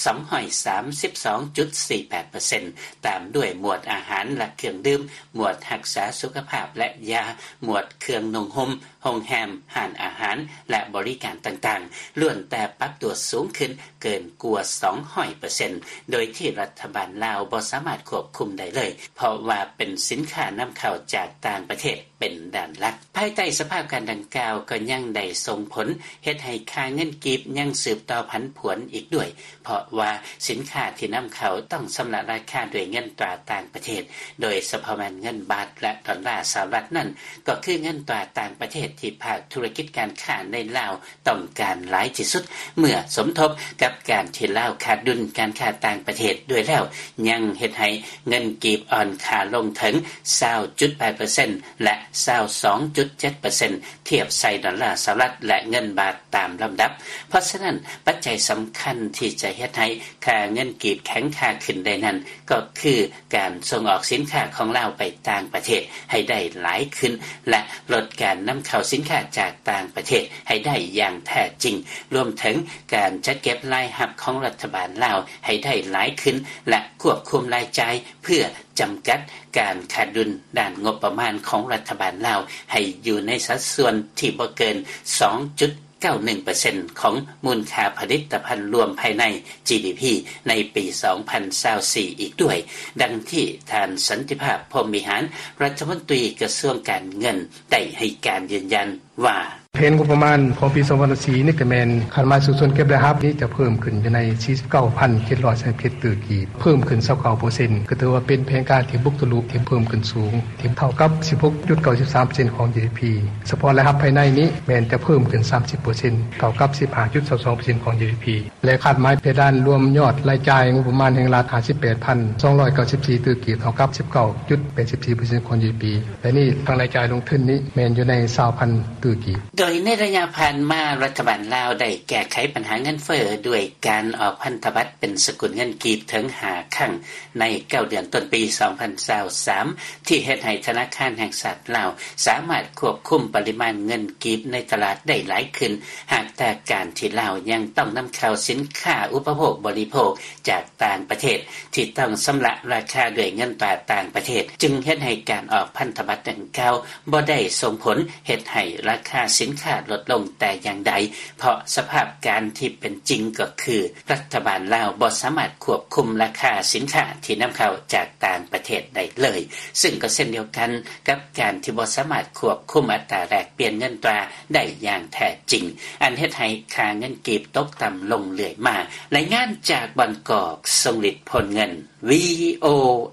ສອງຮ້ອຍສາມສິບສອງຈຸດສີ່ແປດເປີເຊັນ, ຕາມດ້ວຍໝວດອາຫານ ແລະ ເຄື່ອງດື່ມ, ໝວດຮັກສາສຸຂະພາບ ແລະ ຢາ, ໝວດເຄື່ອງນຸ່ງຫົ່ມ, ໂຮງແຮມ, ຮ້ານອາຫານ ແລະ ບໍລິການຕ່າງໆ ລ້ວນແຕ່ປັບຕົວສູງຂຶ້ນເກີນກວ່າສອງຮ້ອຍເປີເຊັນ, ໂດຍທີ່ລັດຖະບານລາວບໍ່ສາມາດຄວບຄຸມໄດ້ເລີຍ, ເພາະວ່າເປັນສິນຄ້ານຳເຂົ້າຈາກຕ່າງປະເທດ. ເປັນດ້ານຫຼັກ. ພາຍໃຕ້ສະພາບການດັ່ງກ່າວ ກໍຍັງໄດ້ສົ່ງຜົນເຮັດໃຫ້ຄ່າເງິນກີບຍັງສືບຕໍ່ຜັນຜວນອີກດ້ວຍ, ເພາະວ່າສິນຄ້າທີ່ນຳເຂົ້າຕ້ອງຊຳລະລາຄາດ້ວຍເງິນຕາຕ່າງປະເທດ, ໂດຍສະເພາະແມ່ນເງິນບາດ ແລະ ດອນລາສະຫະລັດນັ້ນ ກໍຄືເງິນຕາຕ່າງປະເທດທີ່ພາກທຸລະກິດການຄ້າໃນລາວ ຕ້ອງການຫຼາຍທີ່ສຸດ ເມື່ອສົມທົບກັບການທີ່ລາວຂາດດຸນການຄ້າຕ່າງປະເທດດ້ວຍແລ້ວ ຍັງເຮັດໃຫ້ເງິນກີບອ່ອນຄ່າລົງເຖິງ ຊາວຈຸດແປດເປີເຊັນ ແລະ ຊາວສອງຈຸດເຈັດເປີເຊັນ ທຽບໃສ່ດອນລາສະຫະລັດ ແລະ ເງິນບາດຕາມລຳດັບ. ເພາະສະນັ້ນ, ປັດໄຈສຳຄັນທີ່ຈະເຮັດໃຫ້ຄ່າເງິນກີບແຂງຄ່າຂຶ້ນໄດ້ນັ້ນ ກໍຄືການສົ່ງອອກສິນຄ້າຂອງລາວໄປຕ່າງປະເທດໃຫ້ໄດ້ຫຼາຍຂຶ້ນ ແລະ ລົດການນຳເຂົ້າສິນຄ້າຈາກຕ່າງປະເທດໃຫ້ໄດ້ຢ່າງແທ້ຈິງ, ລວມເຖິງການຈັດເກັບລາຍຮັບຂອງລັດຖະບານລາວໃຫ້ໄດ້ຫຼາຍຂຶ້ນ ແລະ ຄວບຄຸມລາຍຈ່າຍ ເພື່ອຈຳກັດການຂາດດຸນດ້ານງົບປະມານຂອງລັດຖະບານລາວ ໃຫ້ຢູ່ໃນສັດສ່ວນທີ່ບໍ່ເກີນ ສອງຈຸດ ເກົ້າໜຶ່ງເປີເຊັນ ຂອງມູນຄ່າຜະລິດຕະພັນລວມພາຍໃນ ຈີດີພີ ໃນປີສອງພັນຊາວສີ່ອີກດ້ວຍ, ດັ່ງທີ່ທ່ານ ສັນຕິພາບ ພົມວິຫານ ລັດຖະມົນຕີກະຊວງການເງິນ ໄດ້ໃຫ້ການຢືນຢັນວ່າ: ແຜນງົບປະມານຂອງປີສອງພັນຊາວສີ່ນີ້ກະແມ່ນຄາດໝາຍສູ້ຊົນເກັບລາຍຮັບນີ້ຈະເພີ່ມຂຶ້ນຢູ່ໃນສີ່ສິບເກົ້າພັນເຈັດຮ້ອຍສາມສິບເຈັດຕື້ກີບ, ເພີ່ມຂຶ້ນຊາວເກົ້າເປີເຊັນ ກະຖືວ່າເປັນແຜນການທີ່ບຸກທະລຸ ທີ່ເພີ່ມຂຶ້ນສູງ ທີ່ເທົ່າກັບສິບຫົກຈຸດເກົ້າສິບສາມເປີເຊັນຂອງ ຈີດີພີ. ສະເພາະລາຍຮັບພາຍໃນນີ້ແມ່ນຈະເພີ່ມຂຶ້ນສາມສິບເປີເຊັນ ເທົ່າກັບສິບຫ້າຈຸດຊາວສອງເປີເຊັນຂອງ ຈີດີພີ ແລະ ຄາດໝາຍເພດານລວມຍອດລາຍຈ່າຍງົບປະມານແຫ່ງລັດ ຫ້າສິບແປດພັນສອງຮ້ອຍເກົ້າສິບສີ່ຕື້ກີບ ເທົ່າກັບສິບເກົ້າຈຸດແປດສິບສີ່ເປີເຊັນຂອງ ຈີດີພີ ແລະ ນີ້ທັງລາຍຈ່າຍລົງທຶນນີ້ແມ່ນຢູ່ໃນຊາວພັນຕື້ກີບ. ໂດຍໃນໄລຍະຜ່ານມາ ລັດຖະບານລາວໄດ້ແກ້ໄຂບັນຫາເງິນເຟີ້ດ້ວຍການອອກພັນທະບັດເປັນສະກຸນເງິນກີບເຖິງຫ້າຄັ້ງໃນເກົ້າເດືອນຕົ້ນປີສອງພັນຊາວສາມ ທີ່ເຮັດໃຫ້ທະນາຄານແຫ່ງຊາດລາວສາມາດຄວບຄຸມປະລິມານເງິນກີບໃນຕະຫຼາດໄດ້ຫຼາຍຂຶ້ນ, ຫາກແຕ່ການທີ່ລາວຍັງຕ້ອງນຳເຂົ້າສິນຄ້າອຸປະໂພກບໍລິໂພກຈາກຕ່າງປະເທດ ທີ່ຕ້ອງຊຳລະລາຄາດ້ວຍເງິນຕາຕ່າງປະເທດ, ຈຶ່ງເຮັດໃຫ້ການອອກພັນທະບັດດັ່ງກ່າວບໍ່ໄດ້ສົ່ງຜົນເຮັດໃຫ້ລາຄາສິນຄ້າລົດລົງແຕ່ຢ່າງໃດ, ເພາະສະພາບການທີ່ເປັນຈິງກໍຄື ລັດຖະບານລາວບໍ່ສາມາດຄວບຄຸມລາຄາສິນຄ້າທີ່ນຳເຂົ້າຈາກຕ່າງປະເທດໄດ້ເລີຍ, ຊຶ່ງກໍເຊັ່ນດຽວກັນກັບການທີ່ບໍ່ສາມາດຄວບຄຸມອັດຕາແລກປ່ຽນເງິນຕາໄດ້ຢ່າງແທ້ຈິງ, ອັນເຮັດໃຫ້ຄ່າເງິນກີບຕົກຕ່ຳລົງເລື້ອຍມາ. ລາຍງານຈາກບາງກອກ, ຊົງລິດ ພົນເງິນ ວີໂອ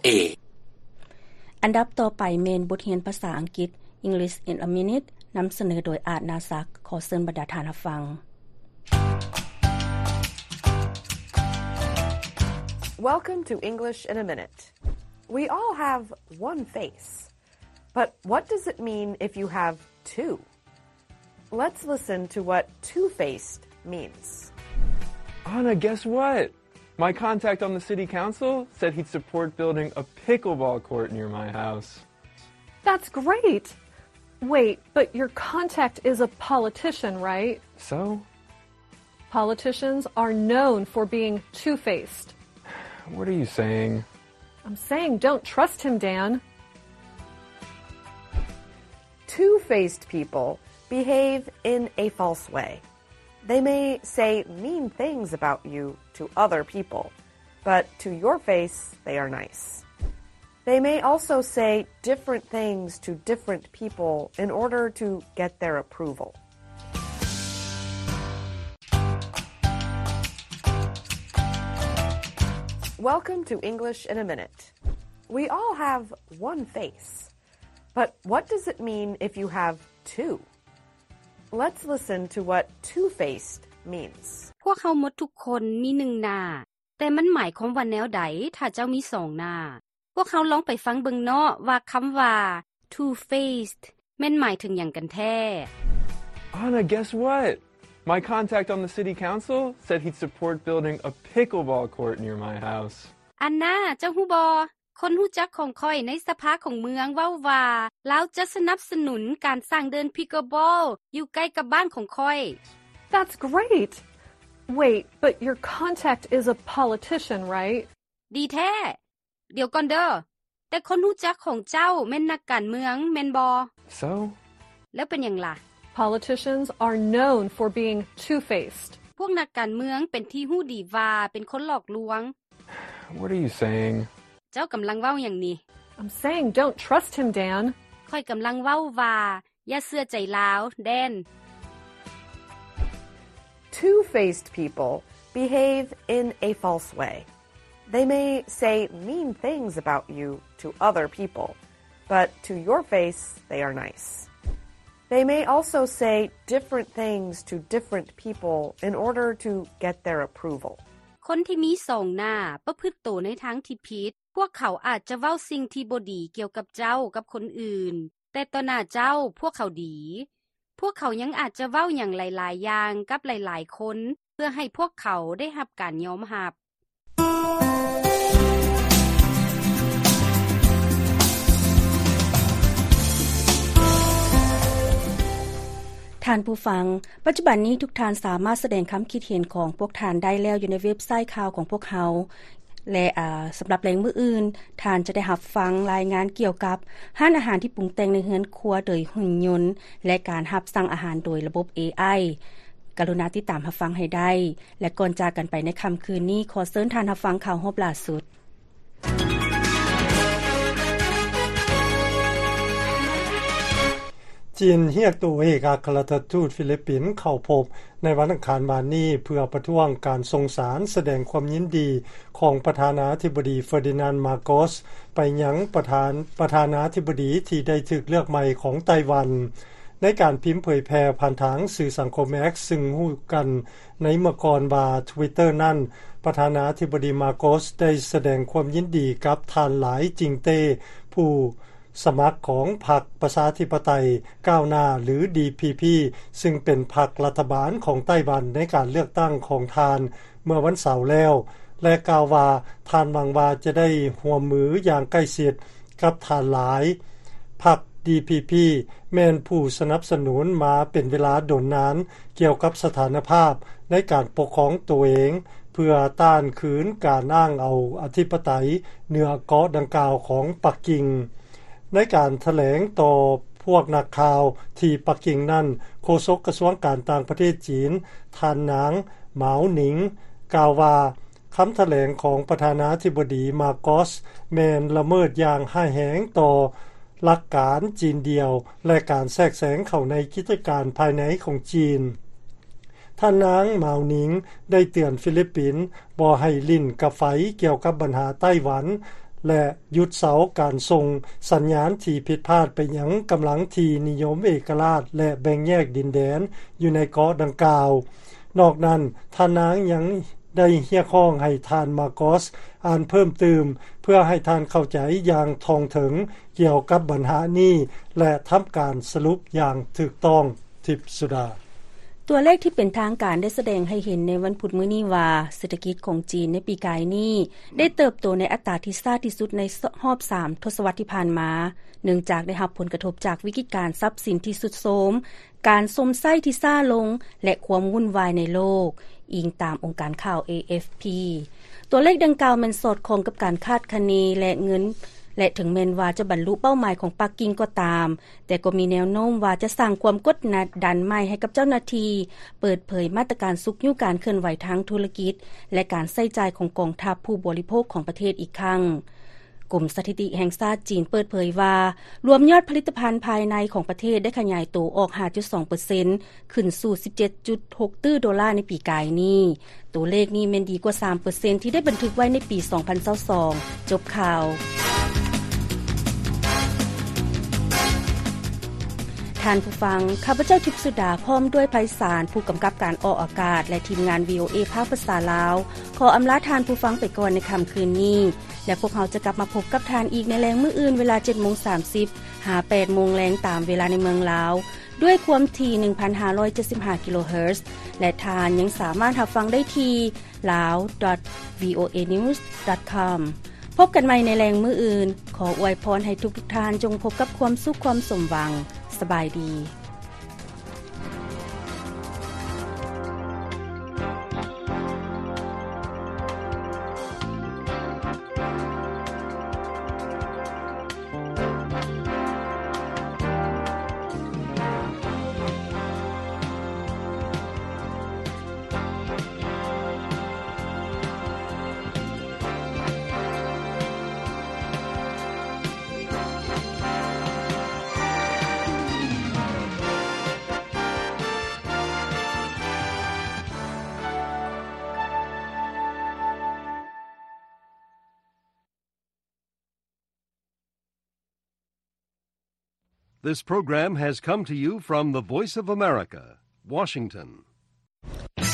ເອ. ອັນດັບຕໍ່ໄປແມ່ນບົດຮຽນພາສາອັງກິດ English in a Minute ນຳສະເໜີໂດຍ ອາດ ນາສັກ. ຂໍເຊີນບັນດາທ່ານຮັບຟັງ. Welcome to English in a Minute. We all have one face. But what does it mean if you have two? Let's listen to what two-faced means. Anna, guess what? My contact on the city council said he'd support building a pickleball court near my house. That's great! Wait, but your contact is a politician, right? So? Politicians are known for being two-faced. What are you saying? I'm saying don't trust him, Dan. Two-faced people behave in a false way. They may say mean things about you to other people, but to your face, they are nice. They may also say different things to different people in order to get their approval. Welcome to English in a Minute. We all have one face. But what does it mean if you have two? Let's listen to what two-faced means. ພວກເຮົາໝົດທຸກຄົນມີໜຶ່ງໜ້າ, ແຕ່ມັນໝາຍຄວາມວ່າແນວໃດຖ້າເຈົ້າມີສອງໜ້າ? ພວກເຮົາລອງໄປຟັງເບິ່ງເນາະວ່າຄຳວ່າ two-faced ແມ່ນໝາຍເຖິງຫຍັງກັນແທ້. Anna, guess what? My contact on the city council said he'd support building a pickleball court near my house. ອັນນ່າ, ເຈົ້າຮູ້ບໍ່? ຄົນຮູ້ຈັກຂອງຂ້ອຍໃນສະພາຂອງເມືອງເວົ້າວ່າ ລາວຈະສະໜັບສະໜູນການສ້າງເດີ່ນພິກເກີບອລຢູ່ໃກ້ກັບບ້ານຂອງຂ້ອຍ. That's great! Wait, but your contact is a politician, right? ດີແທ້! ດຽວກ່ອນເດີ້, ແຕ່ຄົນຮູ້ຈັກຂອງເຈົ້າແມ່ນນັກການເມືອງ, ແມ່ນບໍ່? So? ແລ້ວເປັນຫຍັງລະ? Politicians are known for being two-faced. ພວກນັກການເມືອງເປັນທີ່ຮູ້ດີວ່າເປັນຄົນຫຼອກລວງ. What are you saying? ເຈົ້າກຳລັງເວົ້າຫຍັງນີ້? I'm saying don't trust him, Dan. ຂ້ອຍກຳລັງເວົ້າວ່າ ຢ່າເຊື່ອໃຈລາວ, Dan. Two-faced people behave in a false way. They may say mean things about you to other people, but to your face, they are nice. They may also say different things to different people in order to get their approval. ຄົນທີ່ມີສອງໜ້າປະພຶດໂຕໃນທາງທີ່ຜິດ. ພວກເຂົາອາດຈະເວົ້າສິ່ງທີ່ບໍ່ດີກ່ຽວກັບເຈົ້າກັບຄົນອື່ນ, ແຕ່ຕໍ່ໜ້າເຈົ້າພວກເຂົາດີ. ພວກເຂົາຍັງອາດຈະເວົ້າຫຍັງຫຼາຍໆຢ່າງກັບຫຼາຍໆຄົນ ເພື່ອໃຫ້ພວກເຂົາໄດ້ຮັບການຍອມຮັບ. ທ່ານຜູ້ຟັງ, ປັດຈຸບັນນີ້ທຸກທ່ານສາມາດສະແດງຄຳຄິດເຫັນຂອງພວກທ່ານໄດ້ແລ້ວຢູ່ໃນເວັບໄຊຂ່າວຂອງພວກເຮົາ ແລະ ອາ, ສຳລັບແລງມື້ອື່ນ, ທ່ານຈະໄດ້ຮັບຟັງລາຍງານກ່ຽວກັບຮ້ານອາຫານທີ່ປຸງແຕ່ງໃນເຮືອນຄົວໂດຍຫຸ່ນຍົນ ແລະ ການຮັບສັ່ງອາຫານໂດຍລະບົບ ເອໄອ. ກະລຸນາຕິດຕາມຮັບຟັງໃຫ້ໄດ້. ແລະ ກ່ອນຈາກກັນໄປໃນຄ່ຳຄືນນີ້, ຂໍເຊີນທ່ານຮັບຟັງຂ່າວຮອບລ່າສຸດ. ຈີນຮຽກໂຕເອກອັກຄະລັດຖະທູດຟີລິບປິນເຂົ້າພົບໃນວັນອັງຄານວານນີ້ ເພື່ອປະທ້ວງການສົ່ງສານສະແດງຄວາມຍິນດີຂອງປະທານາທິບໍດີເຟີດີນານ ມາໂກສ ໄປຍັງປະທານ, ປະທານາທິບໍດີທີ່ໄດ້ຖືກເລືອກໃໝ່ຂອງໄຕ້ຫວັນ. ໃນການພິມເຜີຍແຜ່ຜ່ານທາງສື່ສັງຄົມ X ຊຶ່ງຮູ້ກັນໃນເມື່ອກ່ອນວ່າ Twitter ນັ້ນ, ປະທານາທິບໍດີ ມາໂກສ ໄດ້ສະແດງຄວາມຍິນດີກັບທ່ານ ຫຼາຍ ຈິງເຕ້ ຜູ້ ສະໝັກຂອງພັກປະຊາທິປະໄຕກ້າວໜ້າ ຫຼື ດີພີພີ ຊຶ່ງເປັນພັກລັດຖະບານຂອງໄຕ້ຫວັນໃນການເລືອກຕັ້ງຂອງທ່ານເມື່ອວັນເສົາແລ້ວ ແລະ ກ່າວວ່າທ່ານຫວັງວ່າຈະໄດ້ຮ່ວມມືຢ່າງໃກ້ຊິດກັບທ່ານຫຼາຍ. ພັກ ດີພີພີ ແມ່ນຜູ້ສະໜັບສະໜູນມາເປັນເວລາດົນນານກ່ຽວກັບສະຖານະພາບໃນການປົກຄອງໂຕເອງ ເພື່ອຕ້ານຄືນການອ້າງເອົາອະທິປະໄຕເໜືອເກາະດັ່ງກ່າວຂອງປັກກິ່ງ. ໃນການຖະແຫຼງຕໍ່ພວກນັກຂ່າວທີ່ປັກກິ່ງນັ້ນ, ໂຄສົກກະຊວງການຕ່າງປະເທດຈີນ, ທ່ານນາງ ໝາວໜິງ ກ່າວວ່າ, ຄຳຖະແຫຼງຂອງປະທານາທິບໍດີ ມາໂກສ ແມ່ນລະເມີດຢ່າງຮ້າຍແຮງຕໍ່ຫຼັກການຈີນດຽວ ແລະ ການແຊກແຊງເຂົ້າໃນກິດຈະການພາຍໃນຂອງຈີນ. ທ່ານນາງ ໝາວໜິງ ໄດ້ເຕືອນຟີລິບປິນບໍ່ໃຫ້ຫຼິ້ນກັບໄຟກ່ຽວກັບບັນຫາໄຕ້ຫວັນ ແລະ ຢຸດເຊົາການສົ່ງສັນຍານທີ່ຜິດພາດໄປຍັງກຳລັງທີ່ນິຍົມເອກະລາດ ແລະ ແບ່ງແຍກດິນແດນຢູ່ໃນເກາະດັ່ງກ່າວ. ນອກນັ້ນ, ທ່ານນາງຍັງໄດ້ຮຽກຮ້ອງໃຫ້ທ່ານ ມາໂກສ ອ່ານເພີ່ມຕື່ມ ເພື່ອໃຫ້ທ່ານເຂົ້າໃຈຢ່າງທ່ອງເຖິງກ່ຽວກັບບັນຫານີ້ ແລະ ທຳການສະຫຼຸບຢ່າງຖືກຕ້ອງ. ທິບສຸດາ. ຕົວເລກທີ່ເປັນທາງການໄດ້ສະແດງໃຫ້ເຫັນໃນວັນພຸດມື້ນີ້ວ່າ ເສດຖະກິດຂອງຈີນໃນປີກາຍນີ້ໄດ້ເຕີບໂຕໃນອັດຕາທີ່ຊ້າທີ່ສຸດໃນຮອບສາມທົດສະວັດທີ່ຜ່ານມາ, ເນື່ອງຈາກໄດ້ຮັບຜົນກະທົບຈາກວິກິດການຊັບສິນທີ່ຊຸດໂຊມ, ການຊົມໃຊ້ທີ່ຊ້າລົງ ແລະ ຄວາມວຸ່ນວາຍໃນໂລກ, ອີງຕາມອົງການຂ່າວ ເອເອັຟພີ. ຕົວເລກດັ່ງກ່າວແມ່ນສອດຄ່ອງກັບການຄາດຄະເນ ແລະ ເງິນ ແລະ ເຖິງແມ່ນວ່າຈະບັນລຸເປົ້າໝາຍຂອງປັກກິ່ງກໍຕາມ, ແຕ່ກໍມີແນວໂນ້ມວ່າຈະສ້າງຄວາມກົດດັນໃໝ່ໃຫ້ກັບເຈົ້າໜ້າທີ່ເປີດເຜີຍມາດຕະການຊຸກຍູ້ການເຄື່ອນໄຫວທາງທຸລະກິດ ແລະ ການໃຊ້ຈ່າຍຂອງກອງທັບຜູ້ບໍລິໂພກຂອງປະເທດອີກຄັ້ງ. ກົມສະຖິຕິແຫ່ງຊາດຈີນເປີດເຜີຍວ່າ, ລວມຍອດຜະລິດຕະພັນພາຍໃນຂອງປະເທດໄດ້ຂະຫຍາຍໂຕອອກ ຫ້າຈຸດສອງເປີເຊັນ ຂຶ້ນສູ່ ສິບເຈັດຈຸດຫົກຕື້ໂດລາໃນປີກາຍນີ້. ຕົວເລກນີ້ແມ່ນດີກວ່າ ສາມເປີເຊັນ ທີ່ໄດ້ບັນທຶກໄວ້ໃນປີ ສອງພັນຊາວສອງ. ຈົບຂ່າວ. ທ່ານຜູ້ຟັງ, ຂ້າພະເຈົ້າ ທິບສຸດາ ພ້ອມດ້ວຍ ໄພສານ ຜູ້ກຳກັບການອອກອາກາດ ແລະ ທີມງານ ວີໂອເອ ພາກພາສາລາວ ຂໍອຳລາທ່ານຜູ້ຟັງໄປກ່ອນໃນຄ່ຳຄືນນີ້ ແລະ ພວກເຮົາຈະກັບມາພົບກັບທ່ານອີກໃນແລງມື້ອື່ນ ເວລາ ເຈັດໂມງສາມສິບ ຫາ ແປດໂມງແລງ ຕາມເວລາໃນເມືອງລາວ ດ້ວຍຄວາມຖີ່ ໜຶ່ງພັນຫ້າຮ້ອຍເຈັດສິບຫ້າ ກິໂລເຮີດ ແລະ ທ່ານຍັງສາມາດຮັບຟັງໄດ້ທີ່ lao dot voanews dot com. ພົບກັນໃໝ່ໃນແລງມື້ອື່ນ. ຂໍອວຍພອນໃຫ້ທຸກໆທ່ານຈົ່ງພົບກັບຄວາມສຸກຄວາມສົມຫວັງ. ສະບາຍດີ. This program has come to you from the Voice of America, Washington.